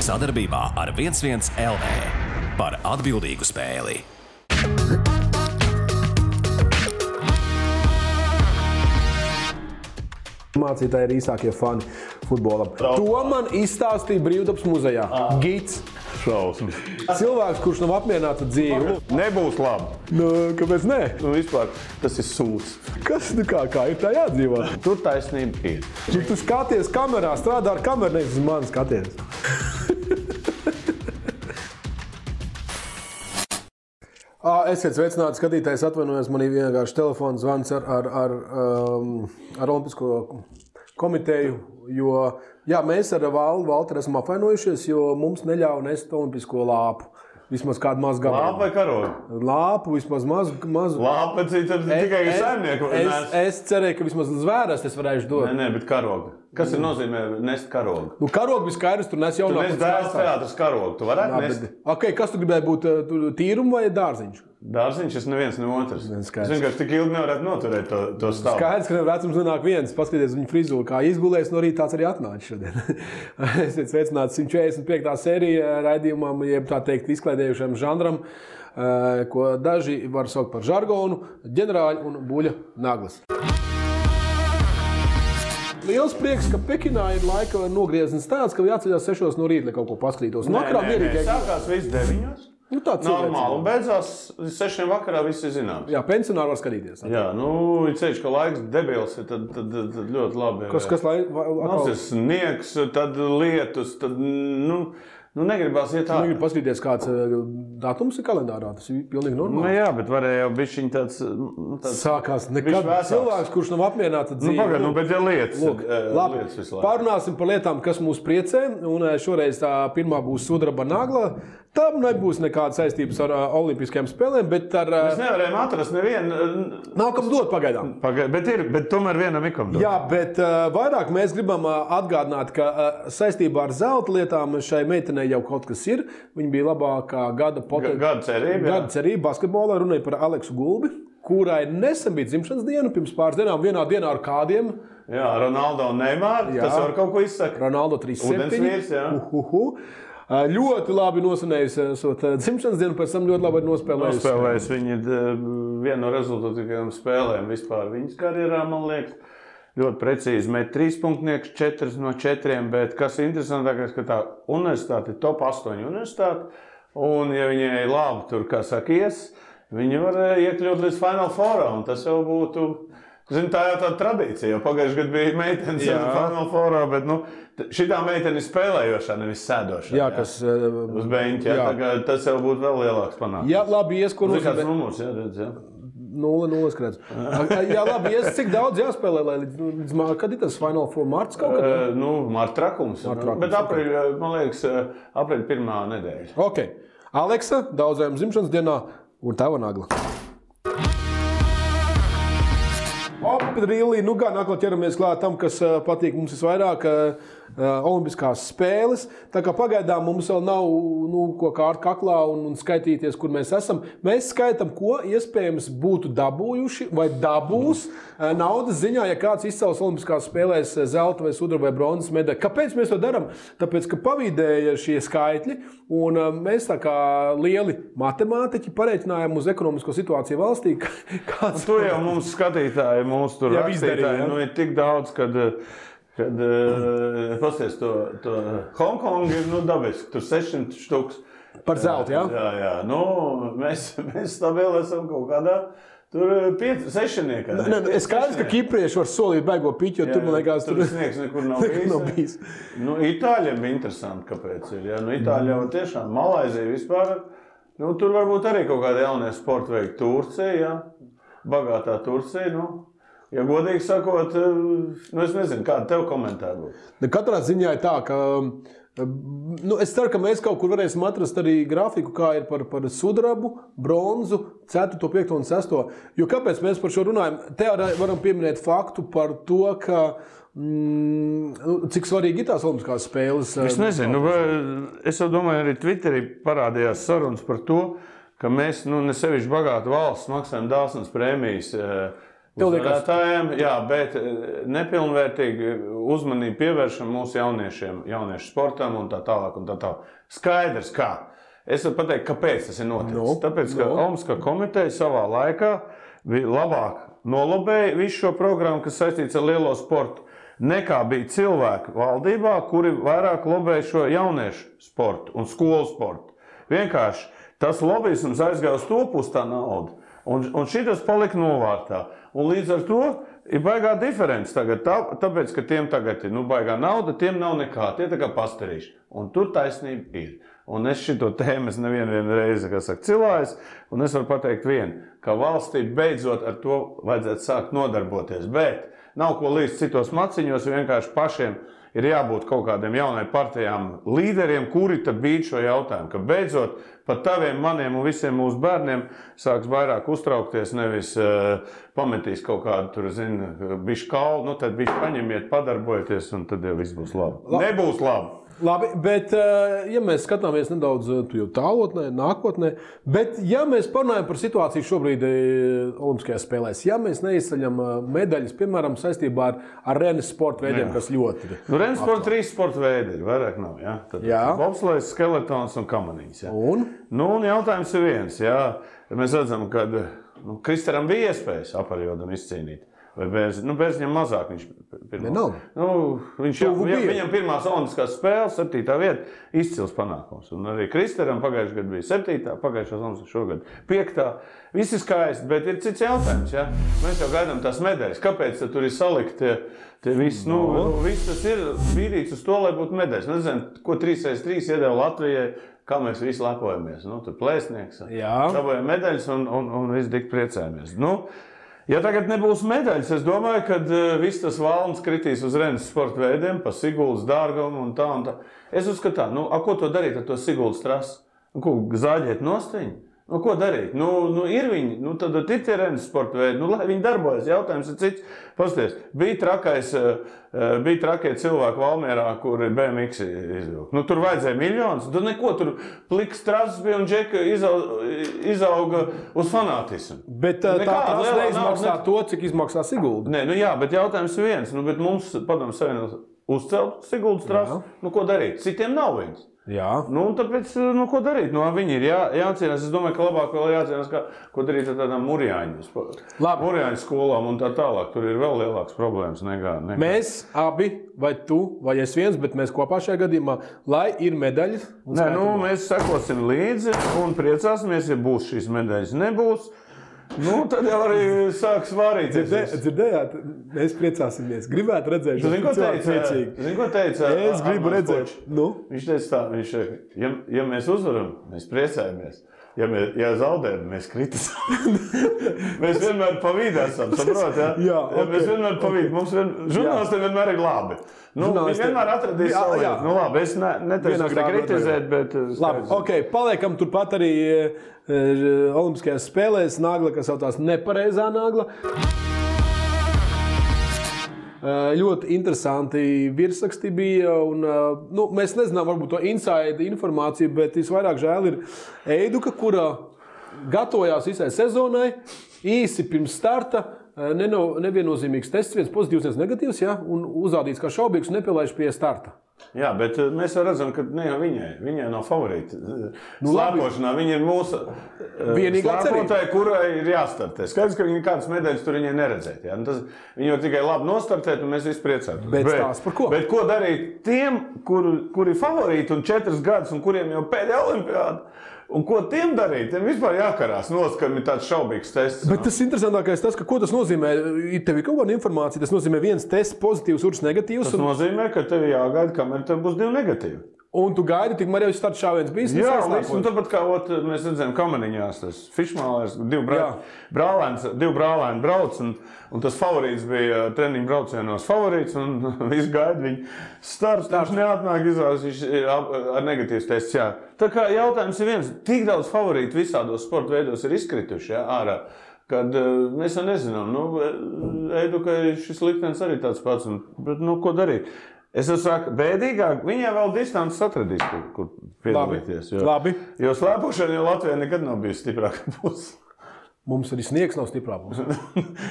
Sadarbībā ar 11 LV par atbildīgu spēli. Mācītāji ir īsākie fani futbolam. To man izstāstīja Brīvdabas muzejā. Gids. Šausmas. Cilvēks, kurš nav apmierināts ar dzīvi. Nebūs labi. Nu, kāpēc ne? Nu, vispār tas ir sūds. Kas, nu kā ir tā jādzīvot? Tur taisnība ir. Tu skaties kamerā, strādā ar kameru, nevis uz mani skaties. Esiet sveicināti, skatītājs, atvainojos, man ir vienkārši telefons zvans ar Olimpisko komiteju, jo jā, mēs ar Valteru esam apvainojušies, jo mums neļauj nest olimpisko lāpu. Vismaz kādu mazu gabalu. Lāpu vai karogu? Lāpu, vismaz mazu. Lāpa tikai saimnieku. Es cerēju, ka vismaz zvēras es varēšu dot. Nē, bet karogu. Kas ir nozīmē nest karogu? Nu, karogu viskaidrs, tur nes jaunākais. Tu nes dēls teātras karogu, tu varētu nest? Ok, kas tu gribēji būt, tīrumu vai dārziņš? Dārziņš, es neviens, ne otrs. Es vienkārši tik ilgi nevarētu noturēt to stāvu. Skaidrs, ka vecums nenāk viens. Paskaties viņu frizūru, kā izgulēs, no rīta tāds arī atnāca šodien. Esiet sveicināti 145. sērija raidījumam, jeb tā teikt izklaidējušam žanram, ko daži var saukt par žargonu, ģenerāļi un buļa naglas. Liels prieks, ka Pekinā ir laika nogrieznis tāds, ka jāceļās 6 no rīta, lai kaut ko paskatītos. Nē, sākās viss 9. Nu, normāli, un beidzās 6 vakarā viss ir zināms. Jā, pensionāri var skatīties. Jā, ir ceļš, ka laiks debils ir, tad ļoti labi. Kas ir sniegs, tad lietus, tad, negribās iet ārā. Negribu paskatīties, kāds datums ir kalendārā, tas ir pilnīgi normāli. Nu jā, bet varēja jau bišķiņ tāds sākās nekad cilvēks, kurš nav apmierināts ar dzīvi. Bet ja lietas. Lūk, labi, pārunāsim par lietām, kas mūs priecē, un šoreiz tā pirmā būs sudraba nagla. Tam nebūs nekāda saistības ar olimpiskajām spēlēm, bet ar... Mēs nevarējām atrast nevienu... Nav kam dot pagaidām. Bet tomēr vienam ir kam dot. Jā, bet vairāk mēs gribam atgādināt, ka saistībā ar zelta lietām šai meitenei jau kaut kas ir. Viņa bija labākā gada cerība basketbolā, runāja par Aleksu Gulbi, kurai nesen bija dzimšanas diena, pirms pāris dienām, vienā dienā ar kādiem. Jā, Ronaldo un Neymar, tas var kaut ko izsaka. Ronaldo 3-7. Udensvīrs, jā. Ļoti labi nosinējusi dzimšanas dienu, pēc tam ļoti labi nospēlējusi. Viņa ir viena no rezultatīvajām spēlēm vispār viņas karjerā, man liekas. Ļoti precīzi met 3 punktnieks, 4 no 4, bet kas interesantākais, ka tā universitāte ir top 8 universitāte, un ja viņai labi tur, kā saka, viņi var iekļūt līdz Final Fourā, un tas jau būtu... Zini, tā jau tāda tradīcija, jo pagājuši gadu bija meitenes Final Fourā, bet šitā meitene ir spēlējošā, nevis sēdošā. Jā, kas... Uz beņķa, tas jau būtu vēl lielāks panākums. Jā, labi, ko nozīmē. Kāds numurs, redz, 0-0 skrēdz. Jā, labi, cik daudz jāspēlē, lai līdz kad ir tas Final Four marts kaut kad? Marta trakums. Bet man liekas, aprīļa 1. nedēļa. Ok. Aleksa, daudzējām dzimšanas dienā un tava nagla. Rīlī, gan atkal ķeramies klāt tam, kas patīk mums visvairāk, olimpiskās spēles. Tā kā pagaidām mums vēl nav ko kārt kaklā un skaitīties, kur mēs esam. Mēs skaitam, ko iespējams būtu dabūjuši vai dabūs naudas ziņā, ja kāds izcels olimpiskās spēlēs zelta vai sudraba vai bronzas medaļu. Kāpēc mēs to darām? Tāpēc, ka pavīdēja šie skaitļi, un mēs tā kā lieli matemātiķi pareiķinājām uz ekonomisko situāciju valstī. Tu jau mums skatītāji, mūsu tur rakstītāji, ir tik daudz, kad pasties to Hongkongu ir dabiski, tur 600 štuks. Par zeltu, jā? Jā. Mēs stabili esam kaut kādā tur 6-niekā. Es skaidrs, ka kiprieši var solīt baigo piķi, jo tur, man liekas, tur sniegs nekur nav bijis. Itāļiem bija interesanti, kāpēc ir. Itāļi jau tiešām, Malaizija vispār, tur varbūt arī kaut kāda jaunie sporta veikti. Turcija, bagātā Turcija, ja godīgi sakot, es nezinu, kāda tev komentāra būtu. Katrā ziņā ir tā, ka es ceru, ka mēs kaut kur varēsim atrast arī grafiku, kā ir par sudrabu, bronzu, 4., 5. un 6. Jo kāpēc mēs par šo runājam? Te varam pieminēt faktu par to, ka cik svarīgi ir tās olimpiskās spēles. Es nezinu, es jau domāju, arī Twitterī parādījās sarunas par to, ka mēs, ne sevišķi bagāta valsts, maksājam dāsnas prēmijas uzvarētājiem, jā, bet nepilnvērtīgi uzmanību pievēršam mūsu jauniešu sportam un tā tālāk. Skaidrs, kā. Es varu pateikt, kāpēc tas ir noticis. Tāpēc, ka Olimpiskā komiteja savā laikā bija labāk nolobēja visu šo programmu, kas saistīts ar lielo sportu, nekā bija cilvēki valdībā, kuri vairāk lobēja šo jauniešu sportu un skolu sportu. Vienkārši tas lobbyisms aizgāja uz to pusi tā nauda. Un šitas palika novārtā. Un līdz ar to ir baigā diference tagad. Tāpēc, ka tiem tagad ir baigā nauda, tiem nav nekā. Tie tā kā pastarīši. Un tur taisnība ir. Un es šito tēmu nevienu reizi, kā saka, cilājis. Un es varu pateikt vienu, ka valstī beidzot ar to vajadzētu sākt nodarboties. Bet nav ko līdz citos maciņos, vienkārši pašiem ir jābūt kaut kādiem jaunai partijām līderiem, kuri tad bīd šo jautājumu, ka beidzot pat taviem, maniem un visiem mūsu bērniem sāks vairāk uztraukties, nevis pametīs kaut kādu, tur, bišķi kaulu, tad bišķi paņemiet, padarbojieties, un tad jau viss būs labi. Nebūs labi. Labi, bet ja mēs skatāmies nedaudz tālotnē, nākotnē, bet ja mēs parunājam par situāciju šobrīd Olimpiskajās spēlēs, ja mēs neizceļam medaļas, piemēram, saistībā ar renes sporta veidiem, kas ļoti ir. Renes sporta 3 sporta veidi ir, vairāk nav, jā? Tad bobslejs, skeletons un kamaniņas, jā? Un jautājums ir viens, jā? Mēs redzam, ka Kristaram bija iespējas aparjodam izcīnīt. Vai Bērziņam mazāk viņš viņam pirmās olimpiskās spēles, 7. vieta, izcils panākums. Un arī Kristaram pagājušajā gadā bija 7. pagājušās olimpiskās šogad 5. Viss ir skaisti, bet ir cits jautājums. Ja? Mēs jau gaidām tās medaļas. Kāpēc tur ir salikt tie viss? Viss tas ir bīdīts uz to, lai būtu medaļas. Nezinu, ko 3x3 iedeva Latvijai, kā mēs visi lepojamies. Tur plēsnieks, dabojam medaļas un visi tik priecājamies. Ja tagad nebūs medaļas, es domāju, ka viss tas valns kritīs uz renes sporta veidiem, pa Siguldas dārgumu un tā. Es uzskatu tā, ko to darīt ar to Siguldas trasu? Ko, zāģēt nostiņu? Ko darīt? Ir viņi, tad ir tie renes sporta veidi, lai viņi darbojas. Jautājums ir cits. Pasties, bija trakie cilvēki Valmierā, kuri BMX izvilka. Tur vajadzēja miljonus, tur neko, tur pliks trases bija un džeka izauga uz fanātismu. Bet tā trasa neizmaksā to, cik izmaksā Sigulda. Nē, jā, bet jautājums ir viens. Bet mums, padomu savienot, uzcelt Siguldas trasu, ko darīt? Citiem nav viņas. Jā. Tāpēc, ko darīt? Viņi ir jācīnās. Es domāju, ka labāk vēl jācīnās, ko darīt ar tādām Murjāņu skolām un tā tālāk. Tur ir vēl lielāks problēmas nekā. Mēs abi, vai tu, vai es viens, bet mēs kopā šajā gadījumā, lai ir medaļas. Mēs sekosim līdzi un priecāsimies, ja būs šīs medaļas. Nebūs. Tad jau arī sāks vārīt. Dzirdējāt, mēs priecāsimies. Gribētu redzēt, Zini, ko teica? Es gribu redzēt. Viņš teica tā, ja mēs uzvaram, mēs priecājamies. Ja zaudējam, mēs kritisam. Mēs vienmēr pa vidu esam, saprot, ja? Mēs vienmēr pa vidu. Mums žurnālistiem vienmēr ir labi. Viņi vienmēr atradīs savu lietu. Labi, es neteicu kritizēt, bet... Labi, paliekam turpat arī Olimpiskajās spēlēs nagla, kas saucās nepareizā nagla. Ļoti interesanti virsraksti bija. Mēs nezinām varbūt to inside informāciju, bet visvairāk žēl ir Eiduka, kura gatavojās visai sezonai, īsi pirms starta. Neviennozīmīgs tests, viens pozitīvs, viens negatīvs, un uzrādīts kā šaubīgs un nepielaiž pie starta. Jā, bet mēs jau redzam, ka ne jau viņai nav favorīti. Slēpošanā viņa ir mūsu slēpotāja, kurai ir jāstartē. Skaidrs, ka viņa kādas medaļas tur viņai neredzēt. Ja? Viņa jau tikai labi nostartēt, un mēs visi priecātu. Bet tās par ko? Bet ko darīt tiem, kuri favorīti un 4 gadus, un kuriem jau pēdējā olimpiāda? Un ko tiem darīt? Tiem vispār jākarās nost, ka ir tāds šaubīgs tests. Bet tas interesantākais tas, ka ko tas nozīmē? Tev ir kaut kāda informācija, tas nozīmē viens tests pozitīvs, otrs negatīvs. Tas nozīmē, ka tev jāgaida, kamēr tev būs 2 negatīvi. Un tu gaidi, tikmēr jau starta šāviens bijis? Jā, un tāpat kā mēs redzējām kamaniņās, tas fišmālēs, 2 brālēni brauc, un tas favorīts bija treniņu braucienos favorīts, un viss gaida viņu starts, viņš neatnāk izrādās, viņš ar negatīvs tests, jā. Tā kā jautājums ir viens, tik daudz favorītu visādos sporta veidos ir izkrituši, jā, ārā, kad mēs jau nezinām, Eidukai šis liktenis arī tāds pats, bet, ko darīt? Es saku, bēdīgāk, viņai vēl distances atradīs, kur piedalīties. Labi. Jo slēpošana jau Latvijā nekad nav bijusi stiprāka puse. Mums arī sniegs nav stiprā puse.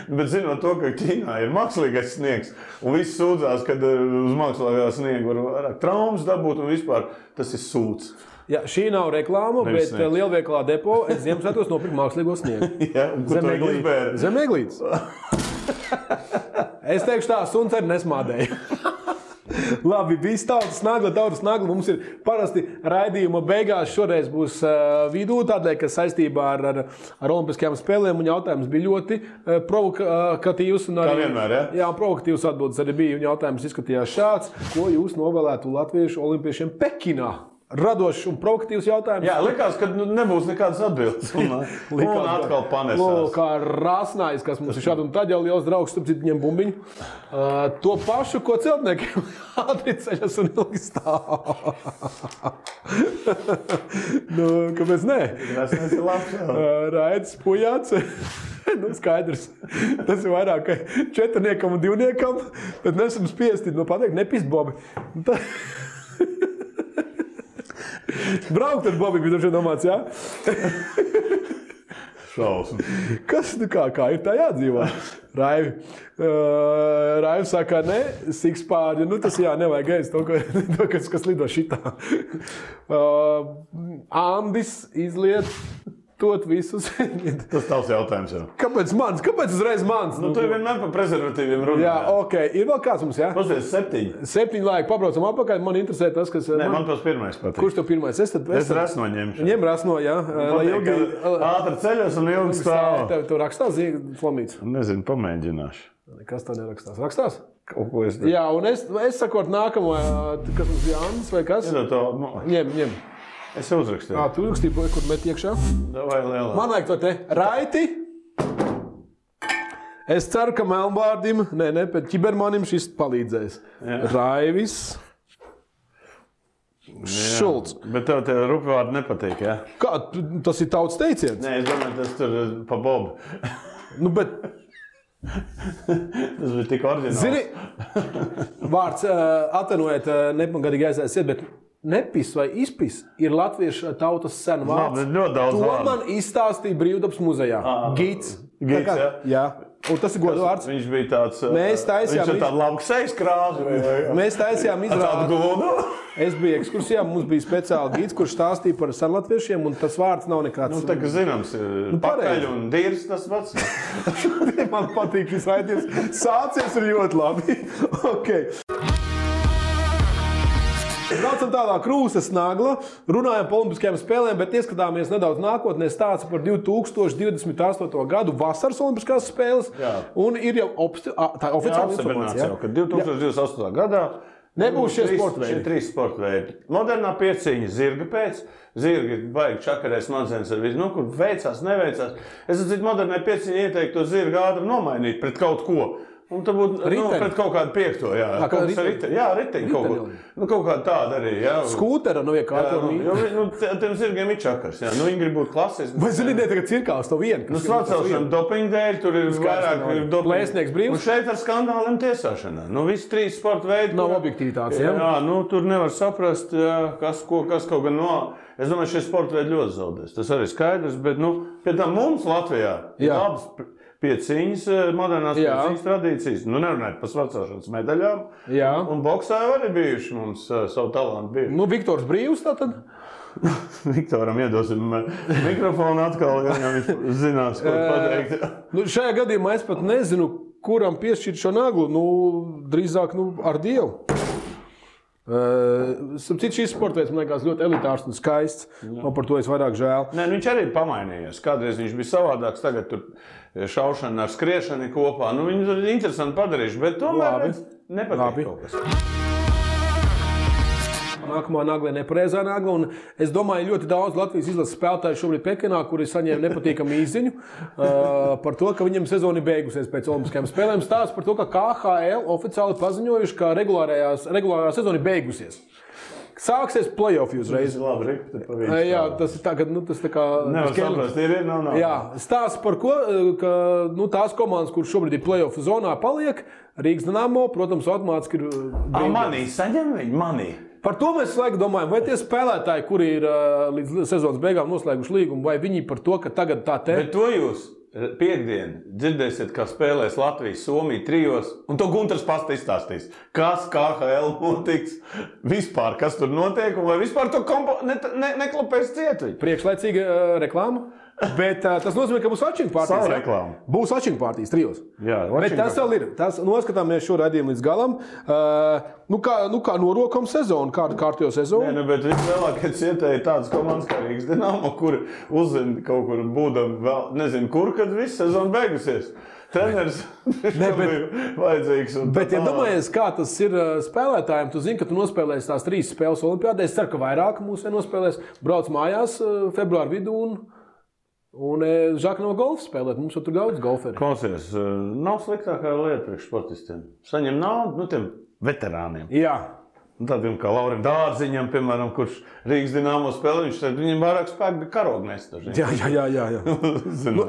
Bet zinot to, ka Ķīnā ir mākslīgais sniegs, un viss sūdzās, ka uz mākslīgā sniega var vairāk traumas dabūt, un vispār tas ir sūds. Jā, šī nav reklāma, Nevis bet sniegs. lielveikalā depo es Ziemassvētkos nopirku mākslīgo sniegu. Jā, un kur to izbēri? Zem eglītes. Es teikšu tā, suns arī nesmādēja. Labi, viss tautas nagla. Mums ir parasti raidījuma beigās šoreiz būs vidū, tādēļ, ka saistībā ar Olimpiskajām spēlēm un jautājums bija ļoti provokatīvs. Kā vienmēr, ja? Jā, provokatīvs atbildes arī bija, un jautājums izskatījās šāds. Ko jūs novēlētu latviešu olimpiešiem Pekinā? Radošs un provokatīvs jautājums. Jā, likās, ka nebūs nekādas atbildes. Un atkal panesās. Kā Rāsnājs, kas mums ir šādi un tad jau liels draugs, starp citu viņiem bumbiņu. To pašu, ko celtniekiem ātri ceļas un ilgi stāv. Kāpēc nē? Tas ir labs. Raidis Pujāts. Skaidrs. Tas ir vairāk kā 4 un 2, bet nesam spiesti pateikt, nepist Bobi. Braukt ar Bobi, bija droši domāts, jā? Šausmas. Kas, kā ir tā jādzīvā? Raivi saka, ne, sikspārģi, tas jā, nevajag ēst to, kas lido šitā. Andis izliet tot visus. Tas tavs jautājums jau. Kāpēc mans? Kāpēc uzreiz mans? Tu vienmēr par prezervatīviem runā. Jā, ok. Ir vēl kāds mums, jā? Pasties 7. 7 laiki, pabraucam apakaļ. Man interesē tas, kas... Nē, man tas pirmais patīk. Kurš tev pirmais? Es rasno ņemšu. Ņem rasno, jā. Lai ilgi... Ātri ceļos un ilgi stāv. Tev rakstās Flamīts? Nezinu, pamēģināšu. Kas tev nerakstās? Rakstās? Kaut ko es... Jā, un es sakot nākamo, kas mums Jānis vai kas? Ņem. Es uzrakstīju. Tu uzrakstīji, kur met iekšā? Davai lielā. Man vajag to te. Raiti. Es ceru, ka Melnbārdim, bet Ķibermanim šis palīdzēs. Jā. Raivis. Šulcs. Bet tev tie rupjvārdi nepatīk, jā? Kā? Tas ir tautas teiciens? Nē, es domāju, tas tur pa Bobu. Bet... Tas bija tik oriģināls. Zini, vārds atvainojiet, nepagadīgi aizies, bet nepis vai izpis ir latviešu tautas sena vārds. To man izstāstīja Brīvdabas muzejā. Gids. Gids, jā? Jā. Un tas ir godu vārds. Viņš bija tāds... Mēs taisījām... Viņš ir tāda laba sejas krāsa. Mēs taisījām izrādi. Es biju ekskursijā, mums bija speciāli gids, kurš stāstīja par senlatviešiem, un tas vārds nav nekāds... Tā kā zināms, pakaļ un dīrs tas pats. Man patīk šis raidījums. Sācies ir ļoti labi. Okay. Braucam tālāk, Krūzes nagla, runājam par Olimpiskajām spēlēm, bet ieskatāmies nedaudz nākotnē, stāsta par 2028. gadu vasaras Olimpiskās spēles. Jā. Un ir jau tā oficiāla informācija. Ka 2028. gadā nebūs šie sporta veidi. Šie 3 sporta veidi. Modernā pieciņa zirga pēc. Zirgi baigi čakarē smadzenes ar visu. Kur veicās, neveicās. Es atcīt modernai pieciņa ieteiktu to zirgu ātri nomainīt pret kaut ko. Un tā būtu pret kaut kādu 5. Jā, riteņi kaut ko. Kaut kāda tāda arī, jā. Skūtera no iekārtojuma. Tiem zirgiem ir čakars, jā. Viņi grib būt klasiski. Vai zini, tagad cirkās to vienu? Svacelšana dopinga dēļ, tur ir vairāk dopinga. Plēsnieks brīvs. Un šeit ar skandāliem tiesāšanā. Visi 3 sporta veidi. Nav objektivitātes, jā? Jā, tur nevar saprast, kas kaut gan no... Es domāju, šie sporta veidi ļoti zaudēs. Tas arī skaidrs, bet, pie tam mums Latvijā ir labas pieciņas, modernās pieciņas tradīcijas. Nerunājot par svacelšanas medaļām. Jā. Un boksā arī bijuši mums savu talantu bijuši. Viktors Brīvs tātad? Viktoram iedosim mikrofonu atkal, ja viņš zinās, ko pateikt. Šajā gadījumā es pat nezinu, kuram piešķirt šo naglu. Drīzāk ar Dievu. Šis sports, man liekas, ļoti elitārs un skaists. Man par to es vairāk žēl. Nē, viņš arī pamainījies. Kādreiz viņš bija savādāks, tagad tur šaušana ar skriešanu kopā. Viņu ir interesanti padarījuši, bet tomēr nepatīk kaut kas. Nākamā nagla ir nepareizā nagla, un es domāju, ļoti daudz Latvijas izlases spēlētāju šobrīd Pekinā, kuri saņēma nepatīkamu īsziņu par to, ka viņiem sezona ir beigusies pēc Olimpiskajām spēlēm. Stāsts par to, ka KHL oficiāli paziņojuši, ka regulārā sezona ir beigusies. Sāksies play-offi uzreiz. Labi, jā, tas ir tā, ka tas tā kā... Nevar saprast, ir, nav. Jā, stāsts par ko, ka tās komandas, kuras šobrīd ir play-offi zonā, paliek. Rīgas Dinamo, protams, automātiski ir... Manī, saņem viņi, manī. Par to mēs laiku domājam, vai tie spēlētāji, kuri ir līdz sezonas beigām noslēguši līgumu, vai viņi par to, ka tagad tā te... Bet to jūs piekdien dzirdēsiet, kā spēlēs Latvijas, Somija trijos, un to Gunters pats izstāstīs. Kas KHL notiks, vispār, kas tur notiek, un vai vispār to neklapēs ciet. Priekšlaicīga reklāma. Bet tas nozīmē, ka būs watching partijas. Būs watching partijas trijos. Jā, bet tas vēl ir. Tas noskatāmies šo raidījumu līdz galam. Kā norokam sezonu, kādu kārtējo sezonu. Nē, bet vislielākie cietēji tādas komandas kā Rīgas Dinamo, kur uzzina kaut kur būdam vēl, nezinu kur, kad viss sezona beigusies. Treneris vajadzīgs. Bet, ja domājies, kā tas ir spēlētājiem, tu zini, ka tu nospēlēsi tās 3 spēles olimpiādē. Es ceru, ka vairāk mūsu nospēlēs. Brauc mājās februāra vidū un Žaka no golfa spēlēt. Mums jau tur daudz golferi. Klausies, nav sliktākā lieta priekš sportistiem. Saņem naudu, tiem veterāniem. Jā. Tādiem kā Laurim Dārziņam, piemēram, kurš Rīgas Dinamo spēlē, viņam vairāk spēku bija karogu nest. Jā.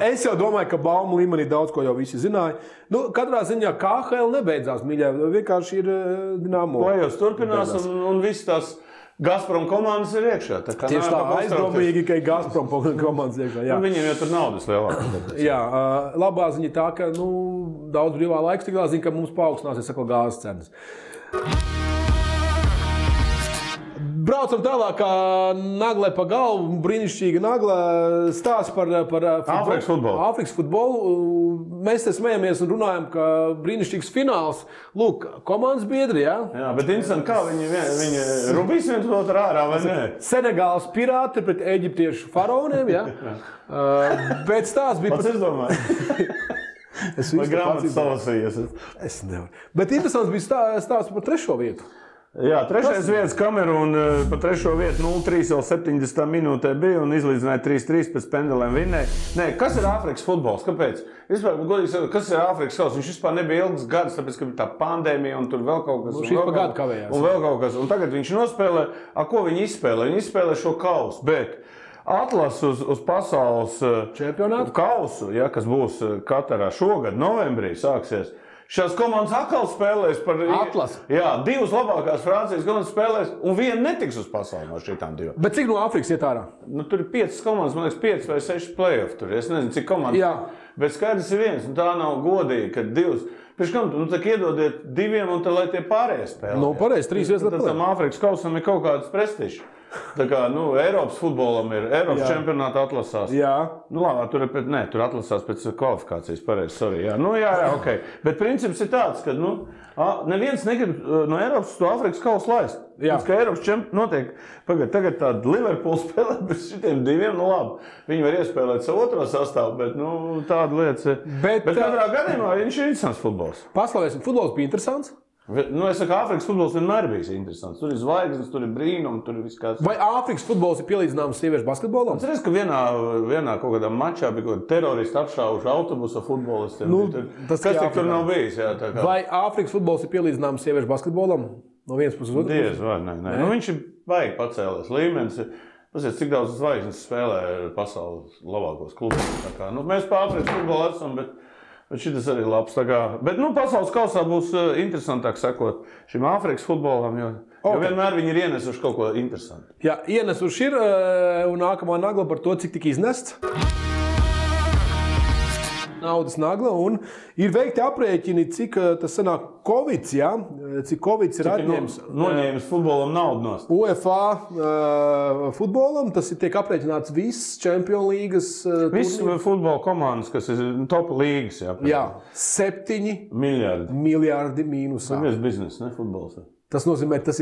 Es jau domāju, ka baumu līmenī daudz ko jau visi zināja. Katrā ziņā KHL nebeidzās, mīļā. Vienkārši ir Dinamo. Play-offs turpinās un viss tās Gazprom komandas ir iekšā. Tieši tā, aizdomīgi, ka ir Gazprom komandas iekšā. Jā. Viņiem jau tur naudas lielāk. Jā, labā ziņa tā, ka daudz brīvā laiks tiklā zina, ka mums paaugstināsies atkal gāzes cenas. Braucam tālāk, kā naglē pa galvu, brīnišķīga naglē stāsts par Āfrikas futbolu. Mēs te smejamies un runājam, ka brīnišķīgs fināls. Lūk, komandas biedri, jā? Jā, bet interesanti, kā viņi rubīs viens otru ārā, vai ne? Senegāls pirāti pret eģiptiešu faraoniem, jā? Bet stāsts bija... Pats es domāju. Vai grāmatas salasījies? Es nevaru. Bet interesants bija stāsts par 3. vietu. Jā, 3. vietas Kamerūna pa 3. vietu 0-3 vēl 70 minūtē bija un izlīdzināja 3-3 pēc pendelēm vinnēja. Nē, kas ir Āfrikas futbols? Kāpēc? Vispār, godīgi sakot, kas ir Āfrikas kauss? Viņš vispār nebija ilgs gads, tāpēc, ka bija tā pandēmija un tur vēl kaut kas. Šis pa gadu kavējās. Un vēl kaut kas. Un tagad viņš nospēlē, ko viņi izspēlē? Viņi izspēlē šo kausu, bet atlas uz pasaules čempionātu kausu, ja, kas būs Katarā šogad, novembrī sāksies. Šās komandas atkal spēlēs par atlasu. Jā, 2 labākās Francijas komandas spēlēs, un viena netiks uz pasauli no šitām 2. Bet cik no Āfrikas iet ārā? Tur ir 5 komandas, man liekas, 5 vai 6 play-off tur. Es nezinu, cik komandas. Jā. Bet skaidrs ir viens, un tā nav godīgi, ka 2. Pēc kam tu tā iedodiet 2, un tad lai tie pārējie spēlē. Pareizi, 3 vietas. Tad tam Āfrikas kausam ir kaut kāds prestižs. Tā kā, Eiropas futbolam ir Eiropas čempionāta atlasās. Jā. Labi, tur atlasās pēc kvalifikācijas, pareizi, sorry. Jā, ok. Bet princips ir tāds, ka, neviens negrib no Eiropas to Āfrikas kausu laist. Pēc, ka Eiropas notiek, tagad tāda Liverpool spēlē bez šitiem 2, labi. Viņi var iespēlēt savu otro sastāvu, bet, tāda lietas ir. Bet katrā gadījumā viņš ir interesants futbols. Paslavēsim, futbols bija interesants? Es saku, Āfrikas futbols vienmēr bijis interesants. Tur ir zvaigznes, tur ir brīnumi, tur ir viss kāds. Vai Āfrikas futbols ir pielīdzināms sieviešu basketbolam? Es redzu, ka vienā kaut kādā mačā bija kaut kāda terorista apšāvuši autobusa futbolistiem. Kas tik tur nav bijis? Jā, tā kā. Vai Āfrikas futbols ir pielīdzināms sieviešu basketbolam? No vienas puses uz otru? Diez, vai, nē. Viņš ir baigi pacēlies līmenis. Pasies, cik daudz zvaigznes spēlē pasaules labākos klubus. Mēs pa Āfrikas futbolu esam, bet šitas arī ir labs. Bet pasaules kausā būs interesantāk sekot šim Āfrikas futbolam, jo vienmēr viņi ir ienesuši kaut ko interesantu. Jā, ienesuši ir, un nākamā nagla par to, cik tika iznests. Naudas nagla, un ir veikti aprēķini, cik tas sanāk Covids, jā? Cik Covids ir atņēmis. Noņēmis futbolam naudu nost. UEFA futbolam, tas ir tiek aprēķināts viss Champions līgas. Viss futbola komandas, kas ir top līgas, jā. Jā, 7 miljārdi mīnusā. Tas ir biznes, ne futbols. Tas nozīmē, tas,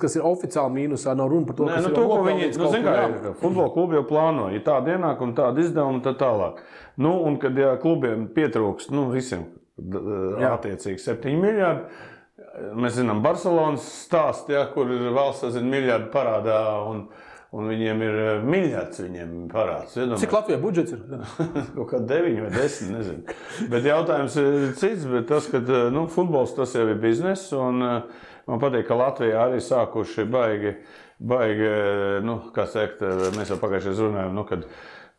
kas ir oficiāli mīnusā, nav runa par to, kas ir nopelnīts. Futbola klubi jau plāno, ja tāda ienāk un tāda izdevuma, tad tālāk. Un kad klubiem pietrūkst, visiem attiecīgi 7 miljārdi, mēs zinām Barcelonas stāstu, kur ir valsts, miljārdi parādā un viņiem ir miljards parāds. Cik Latvijā budžets ir? Kaut kā 9 vai 10, nezinu. Bet jautājums ir cits, bet tas, ka futbols tas jau ir biznes, un man patīk, ka Latvijā arī sākuši baigi, kā teikt, mēs jau pagājušajā runājām, kad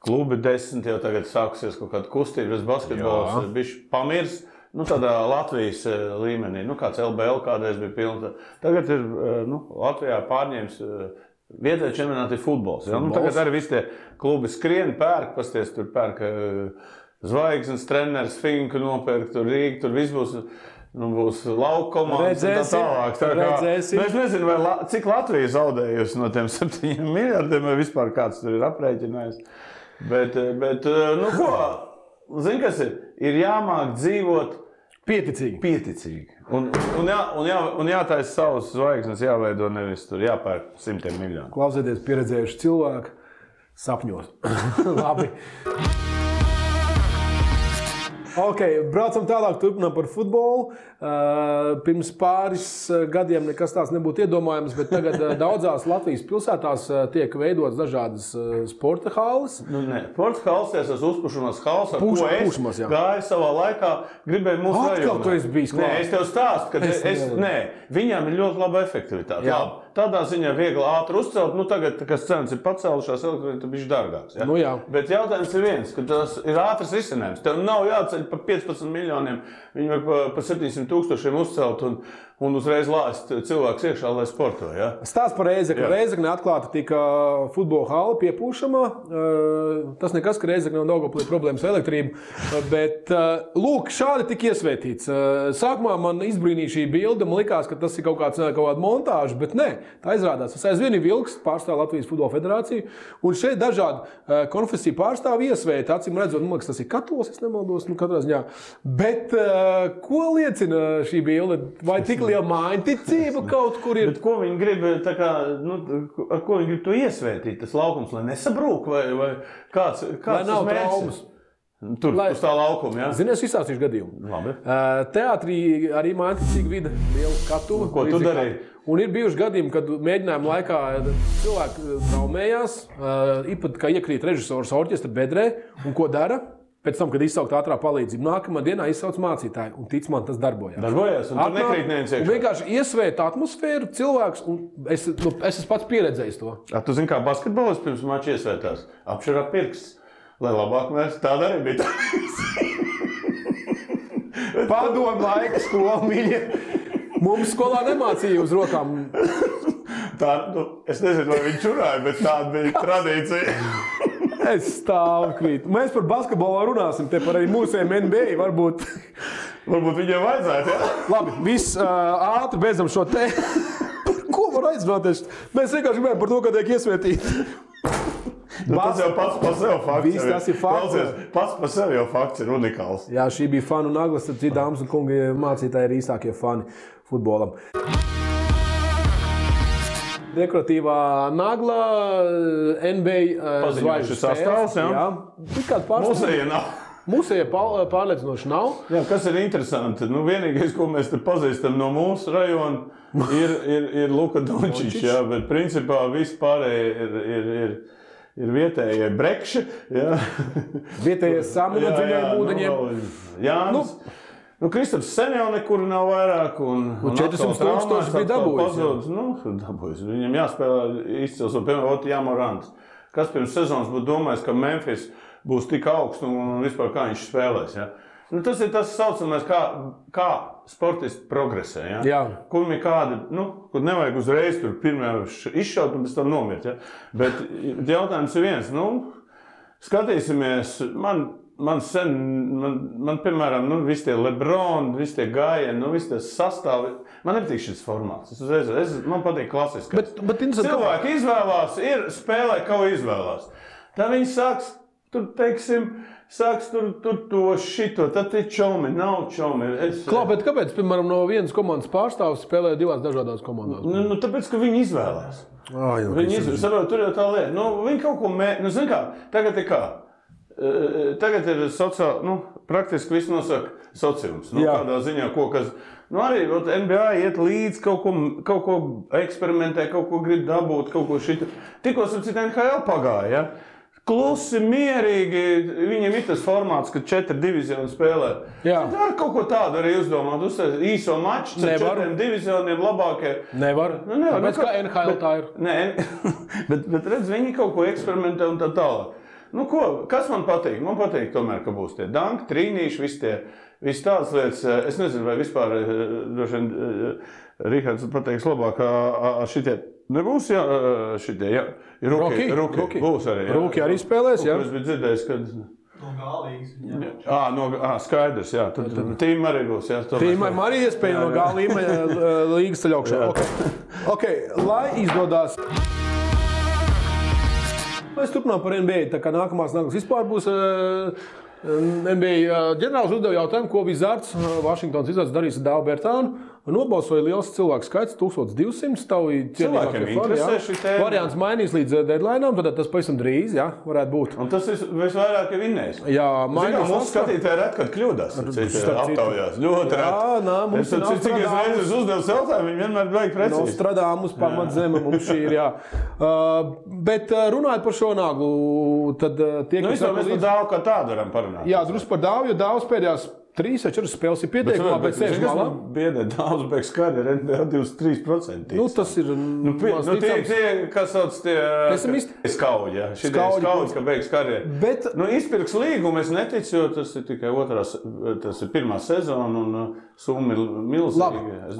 klubi 10 jau tagad sākusies kaut kāda kustība, basketbols bišķi pamirs. Tādā Latvijas līmenī, kāds LBL kādreiz bija pilns. Tagad ir Latvijā pārņēmis Vietējais čempionāts ir futbols. Ja? Nu, tagad arī visi tie klubi skrien, pērk, pasties, tur pērk Zvaigznes, treneris, Finku nopērk, tur Rīga, tur viss būs. Nu, būs lauka komandas un tā tālāk. Es nezinu, cik Latvija zaudējusi no tiem 7 miljardiem, vai vispār kāds tur ir aprēķinājis. Bet nu ko, zini, kas ir? Ir jāmāk dzīvot pieticīgi. Un jātaisa savas zvaigznes, jāveido nevis tur, jāpērk 100 miljonu. Klausieties pieredzējuši cilvēku sapņos. Labi. Ok, braucam tālāk, turpinām par futbolu. Pirms pāris gadiem nekas tāds nebūtu iedomājams, bet tagad daudzās Latvijas pilsētās tiek veidotas dažādas sporta halles. Nu, ne, sporta halles, tas uzpušanās halles, ar ko es gāju savā laikā, gribēju mūsu rajonā. Atkal tu esi bijis klāt. Nē, es tev stāstu, ka viņām ir ļoti laba efektivitāte. Labi. Tādā ziņā viegli ātri uzcelt, nu tagad, kas cenas ir pacēlušās, elektroniski ir bišķi dārgāks. Ja? Nu, jā. Bet jautājums ir viens, ka tas ir ātrs risinājums. Tev nav jāceļ par 15 miljoniem, viņi var par 700 000 uzcelt un uzreiz lāst cilvēks iekšā, lai sporto. Ja? Stāsts par Rēzekni. Rēzekne atklāta tika futbola hala piepūšamā. Tas nekas, ka Rēzekne nav Daugavpilī problēmas ar elektrību. Bet, lūk, šādi tika iesvētīts. Sākumā man izbrīnīja šī bilde, man likās, ka tas ir kaut kāda montāža, bet nē, tā izrādās. Tas aizvien ir Vilks, pārstāv Latvijas futbola federāciju, un šeit dažādi konfesiju pārstāvi iesvēti, acīm redzot, man liekas, tas ir katolis, es nemaldos, nu katrā ziņā. Bet ko liecina šī bilde? Vai tik liela mājiņticība kaut kur ir? Bet ko viņi grib, tā kā, nu, ar ko viņi grib to iesvētīt, tas laukums, lai nesabrūk, vai kāds lai nav traumas? Tur, uz tā laukuma, jā? Zini, es izstāstīšu gadījumu. Labi. Teātrī arī mājiņticīga vide, liela skatuve. Ko tu darīji? Un ir bijuši gadījumi, kad mēģinājuma laikā cilvēki traumējās, īpat kā iekrīt režisors orķestra bedrē, un ko dara? Pēc tam, kad izsaukt ātrā palīdzību, nākamā dienā izsauc mācītāju, un tic man, tas darbojās. Darbojās, un tur nekrīt neviens iekšā. Un vienkārši iesvēta atmosfēru cilvēks, un es esmu pats pieredzējis to. Tu zini, kā basketbolists pirms mača iesvētās? Apšarā pirksts. Lai labāk mēs tāda arī bija. Padomu laika skola, mīļie. Mums skolā nemācīja uz rokām. Tā, nu, es nezinu, vai viņi čurāja, bet tāda bija tradīcija. Es stāvu krītu. Mēs par basketbolu runāsim, te par arī mūsējiem NBA varbūt. Varbūt viņiem vajadzētu, jā? Labi, viss ātri beidzam šo te. Par ko var aizrunāties? Mēs vienkārši gribējām par to, ka tiek iesvētīti. Tas jau pats par sevi fakts. Viss tas ir fakts. Pats par sevi jau fakts ir unikāls. Jā, šī bija fanu naglas, tad dāmas un kungi mācītāji ir īstākie fani futbolam. Dekoratīvā nagla, NBA zvaigžņu sastāvs, jā? Musēja nav. Musēja pārliecinoši nav. Jā, kas ir interesanti, nu vienīgais, ko mēs te pazīstam no mūsu rajona, ir Luka Dončičs, jā, bet principā viss pārējie ir vietējie brekši, jā. Vietējie sami no dziļajiem ūdeņiem. Jānis. Nu, Kristaps sen jau nekur nav vairāk, un 400 000 bija dabūjis. Nu, dabūjis. Viņam jāspēlē izcils, un piemēram, Jamorants. Kas pirms sezonas būtu domājis, ka Memphis būs tik augsts un vispār kā viņš spēlēs, ja? Nu, tas ir tas saucamais, kā sportisti progresē, ja? Jā. Kur ir kādi, nu, kur nevajag uzreiz tur pirmajā izšaut un pēc tam nomirt, ja? Bet jautājums ir viens, nu, skatīsimies, man piemēram, nu, visi tie LeBron, visi tie gājieni, nu, visi tie sastāvi, man nepatīk šis formāts. Man patīk klasiskais. Bet cilvēki izvēlās, spēlē, ko izvēlās. Tā viņi sāks, tur, teiksim, tur to šito, tad ir čomi, nav čomi. Bet kāpēc, piemēram, no vienas komandas pārstāvs spēlē divās dažādās komandās? Nu, tāpēc, ka viņi izvēlās. Viņi izvēlās, tur jau tā lieta. Nu, viņi kaut ko nu, zin kā, tagad ir kā? Tagad ir praktiski viss nosaka sociums. Nu, kādā ziņā, kas... Nu, arī NBA iet līdz kaut ko eksperimentē, kaut ko grib dabūt, kaut ko šita. Tikko ar citu NHL pagāja, ja? Klusi, mierīgi, viņiem ir tas formāts, ka 4 divizioni spēlē. Jā. Tad var kaut ko tādu arī uzdomāt, uzstāst īso maču, 4 divizioniem labākie. Nevar. Nu, nevar. Tāpēc kā NHL tā ir. Nē, bet redz, viņi kaut ko eksperimentē un tā tālāk. Nu, kas man patīk? Man patīk tomēr, ka būs tie danki, trīnīši, visi tādas lietas. Es nezinu, vai vispār, droši vien, Rihards pateiks labāk, šitie Nebūs šitie, jā. Ruki būs arī. Jā. Ruki arī spēlēs, jā. Es biju dzirdējis, kad... No Gālīgas. Skaidrs, jā. Tad tīma arī būs, jā. Tīma arī iespēja no Gālīgas ceļ augšā. Okay, lai izdodās... Mēs turpinām par NBA, tā kā nākamās vispār būs NBA ģenerālis uzdeva jautājumu, ko Wizards, Vašingtons Wizards darīs ar Dāvu Bertānu. Nobalsoja liels cilvēku skaits, 1200. Cilvēkiem interesē šī tēma. Variants mainīs līdz deadline'am, tad tas pavisam drīz, jā, varētu būt. Un tas visvairāk ir vinnējis. Jā, mainīs. Mūsu skatītāji ret, kad kļūdās. Aptaujās. Ļoti ret. Jā, nā, mums ir cik es reizes uzdevu jautājumu, viņi vienmēr vajag precīzi. Nostradamus pamatzeme mums šī ir, jā. Bet runājot par šo naglu, tad tie, kas... Mēs par Dāvu kā tādu varam parunāt. Jā, drusku par Dāvu, jo Dāvs pēdējās 3 vai 4 spēles ir pieteikumā, bet sēž malā. Biedē Dāvs beigas karjeru NBA 23%. Tas ir... Tie, kas sauc tie... Pesimisti? Skauģi, jā. Skauģi, ka beigas karjeru. Bet... Izpirks līgumu es neticu, jo tas ir tikai tas ir pirmā sezona un summa ir milzīga. Labi,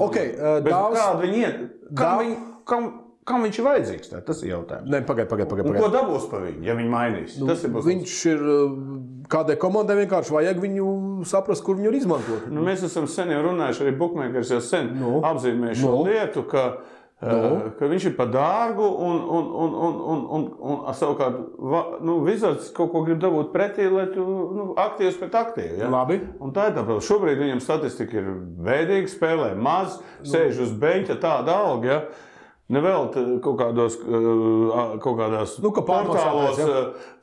okei. Dāvs... Kāda viņi... Kam viņš ir vajadzīgs? Tas ir jautājums. Nē, pagaid. Ko dabūs pa viņu, ja viņi mainīs? Viņš ir... Kādai komandai vienkārši vajag viņu saprast, kur viņu izmantot. Mēs esam sen jau runājuši, arī bookmakers jau sen apzīmējuši šo lietu, ka viņš ir par dārgu un savukārt Wizards kaut ko grib dabūt pretī, lai tu aktīvs pret aktīvu. Ja? Labi. Un tā ir tā, šobrīd viņam statistika ir bēdīga, spēlē maz, sēž uz beņķa tāda alga, ja? Nevēl kaut kādās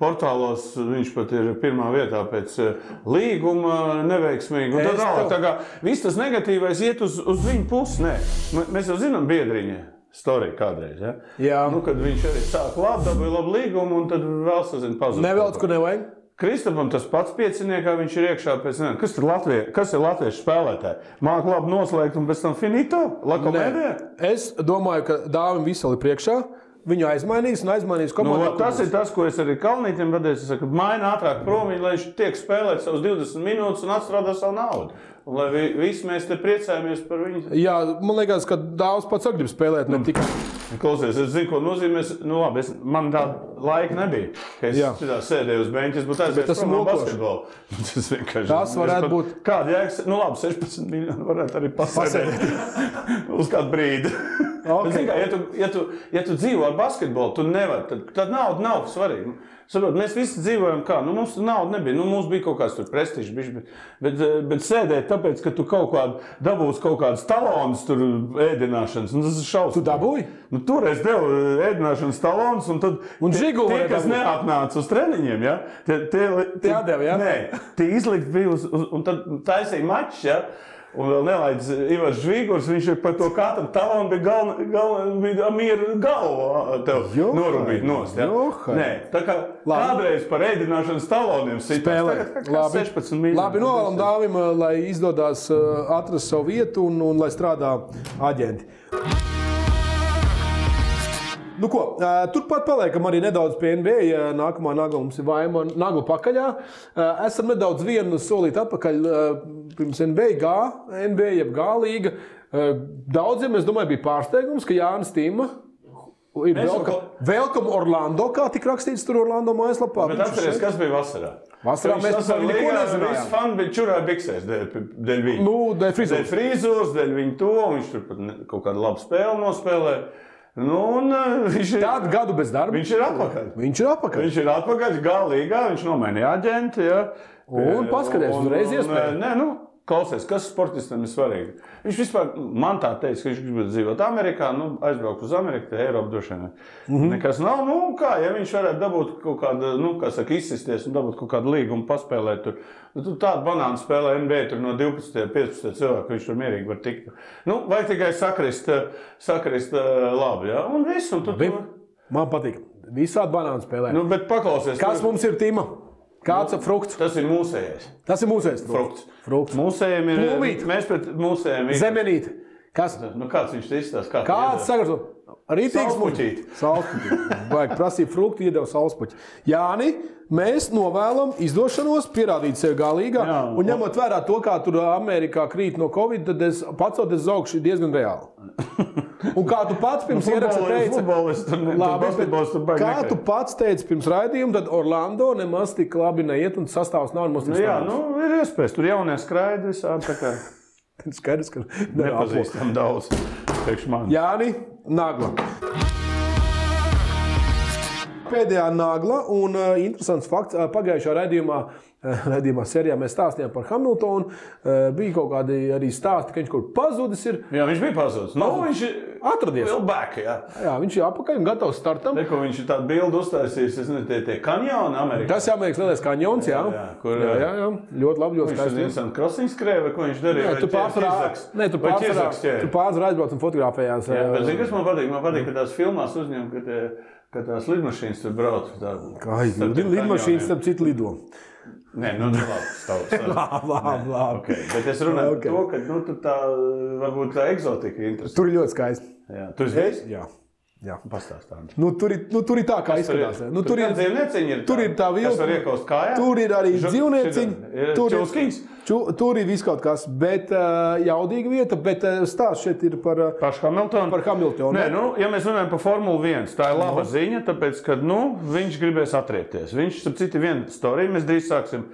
portālos viņš pat ir pirmā vietā pēc līguma neveiksmīgi. Un tad tā kā viss tas negatīvais iet uz viņu pusi. Nē, mēs jau zinām Biedriņa storiju kādreiz. Ja? Jā. Kad viņš arī sāk dabūja labu līgumu un tad vēl sazina pazudu. Nevelc, kur nevajag. Kristapam tas pats pieciniekā, viņš ir iekšā pēc kas ir latviešu spēlētāji? Māk labi noslēgt un pēc tam finito? Lakomēdē? Es domāju, ka Dāvim visali priekšā. Viņu aizmainīs komandā. Tas ir tas, ko es arī Kalnītim vadēju. Es saku, maina ātrāk prom, lai viņš tiek spēlēt savus 20 minūtes un atstrādā savu naudu. Un lai visi mēs te priecājamies par viņu. Jā, man liekas, ka Dāvs pats grib spēlēt, ne tikai. Klausies, es zinu, ko nozīmē. Labi, man tāda laika nebija. Ka es sēdēju uz beņķa, es būtu aizvērts prom no basketbolu. Tas vienkārši... Tas varētu būt... Kāda jēgas? Labi, 16 miljoni varētu arī pasēdēt. Uz kādu brīdi. Okay. Bet, ja tu dzīvo ar basketbolu, tu nevari. Tad nauda nav svarīga. Saprot, mēs visi dzīvojam kā, mums nauda nebija, mums bija kaut kāds tur prestižs, bet sēdēt tāpēc, ka tu kaut kādu dabūsi kaut kādas talonus tur ēdināšanas, tas ir šausmas. Tu dabūji? Toreiz devu ēdināšanas talonus, un tad tie, kas neatnāca uz treniņiem, ja, tie atdeva, ja? Nē, tie izlikt bija un tad taisīja mačs, ja. Un vēl nelaidz Ivars Žvīgurs, viņš ir par to katru talonu bija mieru galvu tev norubīt nost. Ja? Nē, tā kā kādreiz par ēdināšanas taloniem sitās, tagad 16 miljoni. Labi, novēlam Dāvim, lai izdodās atrast savu vietu un lai strādā aģenti. Nu ko, turpat paliekam arī nedaudz pie NBA. Nākamā nagla mums ir Vaima nagla pakaļā. Esam nedaudz vienu solīt atpakaļ pirms NBA jeb G-līga. Daudziem, es domāju, bija pārsteigums, ka Jānis Tīma ir Welcome Orlando, kā tik rakstīts tur Orlando mājaslapā. Bet atceries, kas bija vasarā? Vasarā mēs par viņu neko nezinājām. Visi fani bija čurā biksēs dēļ viņa. Dēļ frizūras. Dēļ viņa to, viņš tur pat kaut kādu labu spēli nospēlē. Tādu gadu bez darba. Viņš ir atpakaļ. Viņš ir atpakaļ G-līgā, viņš nomainīja aģenti. Ja. Un paskaties, uzreiz iespēja. Klausies, kas sportistam ir svarīgi? Viņš vispār, man tā teica, ka viņš grib dzīvot Amerikā, aizbraukt uz Ameriku, te Eiropu droši vien. Nekas nav, ja viņš varētu dabūt kaut kādu, izsisties un dabūt kaut kādu līgumu paspēlēt tur. Tādu banānu spēlē NBA tur no 12, 15 cilvēku, viņš tur mierīgi var tikt. Vajag tikai sakrist labi, ja? Un viss, un tu... Man patīk. Visādi banānu spēlē. Bet paklausies. Kas mums ir, Tima? Kāds ir frukts? Tas ir mūsējais. Tas ir mūsējais frukts. Frukts. Mūsējiem ir... Plūmīt. Mēs pret mūsējiem... Zemenīt. Kas? Nu, kāds viņš te izstāsta? Kāds sagatavo? Rītīgs Saulspuķīt. Saulspuķīt. Vajag prasīt fruktu, iedeva saulspuķi. Jāni, mēs novēlam izdošanos, pierādīt sevi galīgā. Jā, un ņemot vērā to, kā tur Amerikā krīt no Covid, tad pacoties uz augšu diezgan reāli. Un kā tu pats pirms ieraksta teica, kā tu pats teici pirms raidījuma, tad Orlando nemaz tik labi neiet un sastāvs nav nemaz tik Jā, stāvs. ir iespējas. Tur jaunie skraidi visādi tā kā Skaidrs, ka nepazīstam daudz. Priekš man. Jāni, Nagla. Pēdējā Nagla un interesants fakts. Pagājušā raidījumā sērijā mēs stāstījām par Hamiltonu. Bija kaut kādi arī stāsti, ka viņš kaut kur pazudis ir. Jā, viņš bija pazudis. Viņš atradies. Vēl back, jā. Jā, viņš ir apakaļ un gatavs startam. Neko viņš ir tādu bildu uztaisījis, es nezinu, tie kanjoni Amerikā. Tas ir Amerikas lielais kanjons, jā. Jā. Ļoti labi, ļoti skaisti. Viņš ir krosiņu skrēja, ko viņš darīja? Tu pārsvarā aizbrauc un fotografējās. Bet zini, kas man patīk? Man patīk, ka tās filmās uzņem, ka tās lidmašīnas tur brauc. Lidmašīnas starp citu lido. Nē, labi. Labi. Okay. Bet es runāju par to, ka tur tā, varbūt tā eksotika ir interesanta. Tur ir ļoti skaisti. Jā, tu esi bijis? Jā. Pastāstām. Tur ir tā, kā izskatās. Tur ir dzīvnieciņi. Tur ir tā vilna. Kas var iekost kājā? Tur ir arī dzīvnieciņi. Čulskiņs? Tur ir viss kaut kas, bet jaudīga vieta. Bet stāsts šeit ir par Hamiltonu. Nē, ja mēs runājam par Formuli 1, tā ir laba ziņa, tāpēc, ka viņš gribēs atriepties. Viņš, starp citu, viena storija, mēs drīz sāksim.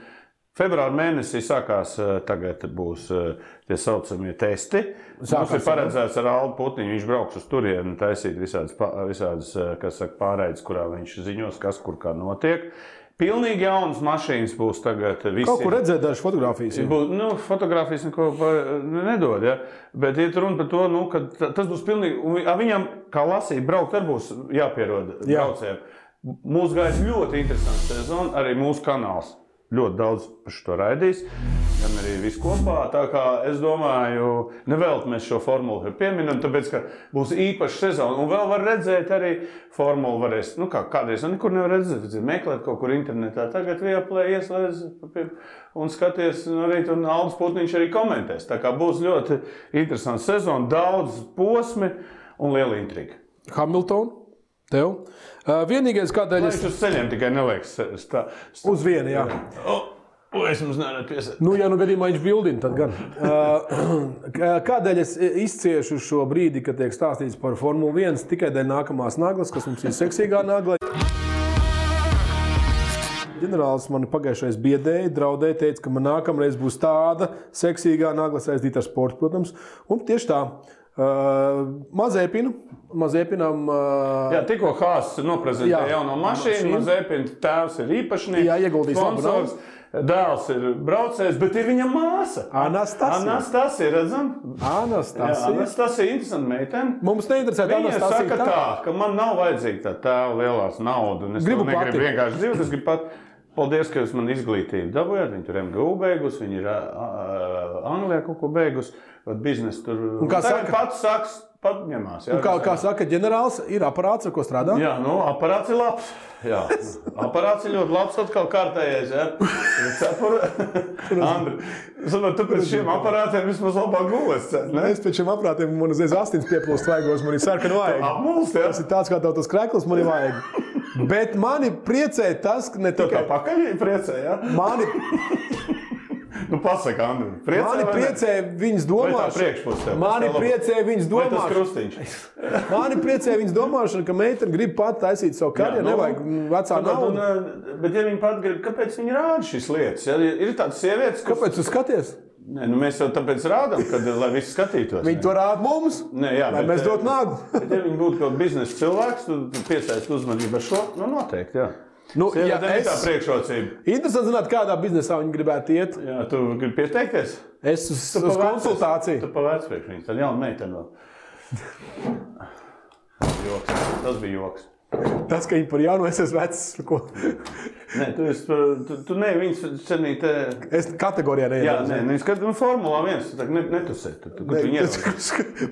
Februāra mēnesī sākās, tagad būs tie saucamie testi. Mums ir paredzēts ar Aldu Putniņu, viņš brauks uz turieni, taisīt visādas pārēdes, kurā viņš ziņos, kas kur kā notiek. Pilnīgi jaunas mašīnas būs tagad visiem. Kaut kur redzēt dažas fotogrāfijas. Fotogrāfijas neko nedod, ja? Bet iet runa par to, ka tas būs pilnīgi, viņam, kā lasīt, braukt arī būs jāpierod braucējiem. Mūs gājis ļoti interesants sezona, arī mūsu kanāls. Ļoti daudz par šo raidīs, gan arī viss kopā. Tā kā es domāju, nevēlt mēs šo formulu pieminam, tāpēc, ka būs īpaša sezona. Un vēl var redzēt arī formulu varēs, kādreiz nekur nevar redzēt, meklēt kaut kur internetā. Tagad Viaplay ieslēdz un skaties, arī tur Aldis Putniņš arī komentēs. Tā kā būs ļoti interesants sezona, daudz posmi un liela intriga. Hamilton, tev? Vienīgais, kādēļ es... Viņš uz ceļiem tikai neliekas. Uz vienu, jā. Es mums nevaru piesēt. Ja gadījumā viņš bildina, tad gan. Kādēļ es izciešu šo brīdi, kad tiek stāstīts par Formuli 1, tikai dēļ nākamās naglas, kas mums ir seksīgā nagla. Ģenerālis mani pagājušais biedēja, draudēja, teica, ka man nākamreiz būs tāda seksīgā nagla saistīta ar sportu, protams. Un tieši tā. Mazēpinam... Jā, tikko Haas noprezentēja jauno mašīnu, Mazēpina tēvs ir īpašnieks, jā, ieguldīs sponsors, dēls ir braucējs, bet ir viņa māsa. Anastasija, redzam? Anastasija, interesanta meitene. Mums neinteresē Anastasija. Viņa saka tā, ka man nav vajadzīga tā tēva lielās naudu, un es negribu vienkārši dzīvot, es gribu pat... Paldies, ka jūs man izglītību dabūjāt. Viņi tur MGU beigus, viņi ir Anglijā kaut ko beigus, biznesu tur. Un kā saka? Pat ņemās. Un kā saka ģenerālis, ir aparāts, ar ko strādā? Jā, aparāts ir labs. Jā, aparāts ir ļoti labs, atkal kārtējais, jā. Andri, tu pēc šiem aparātiem vismaz labāk gules, ne? Es pēc šiem aparātiem, man uzreiz astins pieplūst vaigos, man ir sarkana vajag. Apmulst, jā? Tas ir tāds, kā tas krekls, man ir vajag. Bet mani priecē tas, ka ne tikai... Tā pakaļ priecē, jā? Pasaka, Andri, priecē mani priecē viņas domāšana. Mani priecē viņas domāšana. Vai tas krustiņš? Mani priecē viņas domāšana, ka meitene grib pat taisīt savu karjeru, nevajag vecā naudu. Bet ja viņa pat grib, kāpēc viņa rāda šīs lietas? Ja? Ir tādas sievietes, kāpēc tu skaties? Nē, mēs jau tāpēc rādām, lai visi skatītos. Viņi to rāda mums, lai mēs dotu naglu. Bet ja viņi būtu kaut biznesa cilvēks, tu piesaisti uzmanību ar šo, noteikti, jā. Ja tā priekšrocība. Interesanti zināt, kādā biznesā viņi gribētu iet. Jā, tu gribi pieteikties? Es uz konsultāciju. Tu pavērts priekš viņus, tad jauna meitene vēl. Tas bija joks. Tas, ka viņi par jaunu, es esmu vecs. Nē, tu ne, viņas cenīt... Es kategorijā neiedu. Jā, nē, viņas skatīt Formulā 1, tu tā netusē.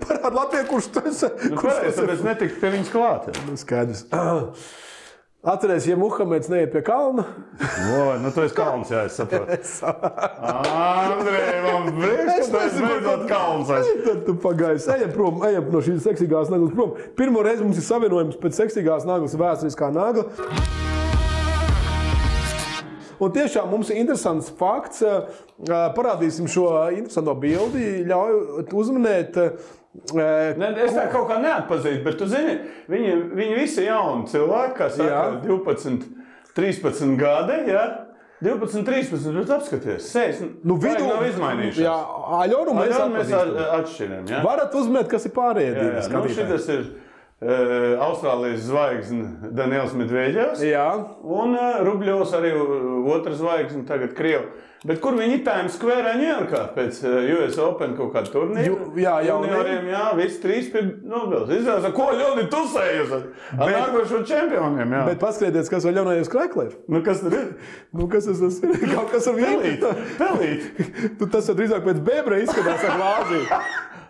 Parāda Latvijā, kurš tu esi. Pareiz, tāpēc netikt pie viņas klāt. Skaidrs. Atceries, ja Muhameds neiet pie kalna. Nu tu esi kalns, jā, es saprotu. Andrej, man prieks, ka tu esi beidzot kalns. Tad tu pagaisi. Ejam no šīs seksīgās naglas prom. Pirmo reizi mums ir savienojums pēc seksīgās naglas vēsturiskā nagla. Un tiešām mums ir interesants fakts. Parādīsim šo interesanto bildi. Ļauj uzminēt. Es tā kaut kā neatpazīstu, bet tu zini, viņi visi jauni cilvēki, kā saka, 12, 13 gadi, jā? 12, 13, bet apskaties, sejas nav izmainījušās. Jā, Aļonu mēs atšķiram, jā? Varat uzminēt, kas ir pārējie divi skatītāji. Šitas ir Austrālijas zvaigzne Daniels Medveģevs, un Rubļovs arī otra zvaigzne, tagad Krievu. Bet kur viņi Times Square Ņujorkā pēc US Open kaut kādu turnīru? Junioriem, visi trīs pie Nobels. Izrādās, ko Ļoni tusējas ar nākošo čempioniem, jā. Bet paskatieties, kas vēl Ļonējus Krekler. Kas tur ir? Kas tas ir? Kaut kas ar vīnu. Pelīt. Tas drīzāk pēc bebra izskatās ar glāzi.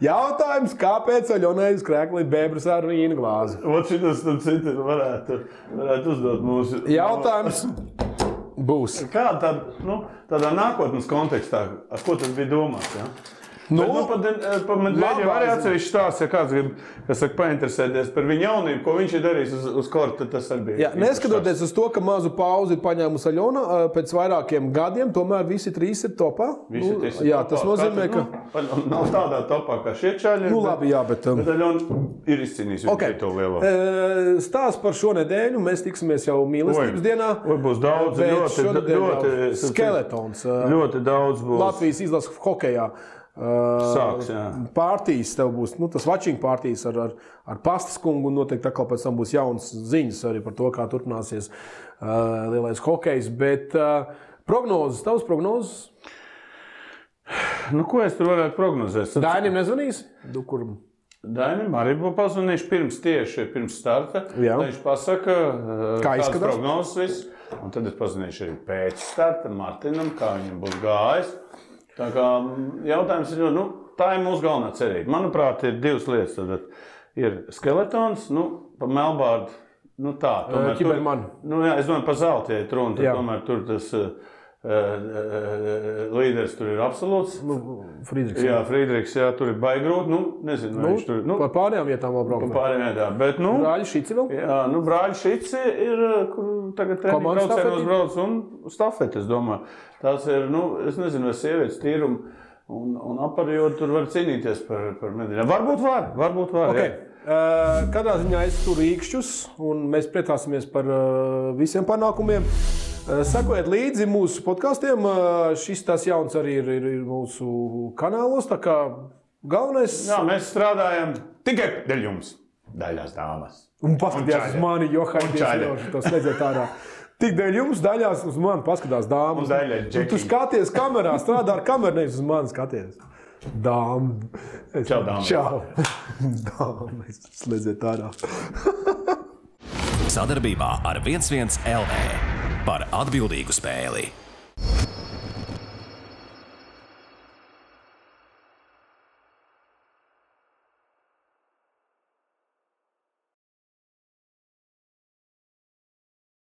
Jautājums, kāpēc Ļonējus Krekler bebras ar vīnu glāzi? Ot šitas tad citi varētu uzdot mūsu... Jautājums būs. Kā tādā nākotnes kontekstā, ar ko tas bija domāts, jā? Pa Medveģevu arī atsevišķi stāsts, ja kāds grib, kas saka, painteresēties par viņu jaunību, ko viņš ir darījis uz korta, tas arī bija. Jā, neskatoties uz to, ka mazu pauzi ir paņēmusi Aļona pēc vairākiem gadiem, tomēr visi trīs ir topā. Jā, tas nozīmē, ka... Nav tādā topā kā šie čaļi. Labi, jā, bet... Bet Aļona ir izcīnījis viņu to lielo. Stāsts par šo nedēļu, mēs tiksimies jau mīlestības dienā. Būs daudz, ļoti skeletons. Ļoti daudz būs. Latvijas izlases hokejā. Sāks, jā. Partijas tev būs, tas watching partijas ar Pastas kungu, un noteikti atkal pēc tam būs jaunas ziņas arī par to, kā turpināsies lielais hokejs, bet prognozes, tavas prognozes? Ko es tur varētu prognozēt? Dainim nezvanīsi? Dainim arī būtu pazvanījuši pirms starta, lai viņš pasaka, kādas prognozes viss, un tad es pazvanīšu arī pēc starta Martinam, kā viņam būs gājis. Tā kā jautājums ir, tā ir mūsu galvenā cerība. Manuprāt, ir divas lietas. Tad ir skeletons, pa Melbārdu, tā. Ķibermani. Es domāju, pa zelta, ja runa, tad tomēr tur tas līderis tur ir absolūts. Friedrichs. Jā, Friedrichs, jā, tur ir baigi grūti. Nezinu, vai viņš tur ir. Par pārējām vietām vēl braukt. Par pārējām vietām, bet Brāļi Šici vēl? Jā, Brāļi Šici ir, kur tagad treniņu braucienos brauc un stafeti, es domāju. Tās ir, es nezinu, vai sievietes tīrumu un aparjot tur var cīnīties par medaļām. Varbūt var. Okay. Kādā ziņā es tur rīkšķus, un mēs priecāsimies par visiem panākumiem. Sekojiet līdzi mūsu podkastiem. Šis tās jauns arī ir mūsu kanālos, tā kā galvenais... Jā, mēs strādājam tikai dēļ jums, daļās dāmas. Un paskatījās uz mani, Johaidies, to slēdzēt ārā. Tik dēļ jums daļās uz mani paskatās dāmas. Un daļai Džeki. Tu skaties kamerā, strādā ar kameru, nevis uz mani skaties. Dāma. Čau, dāma. Čau. Dāma, slēdzēt ārā. Sadarbībā ar 11 LV par atbildīgu spēli.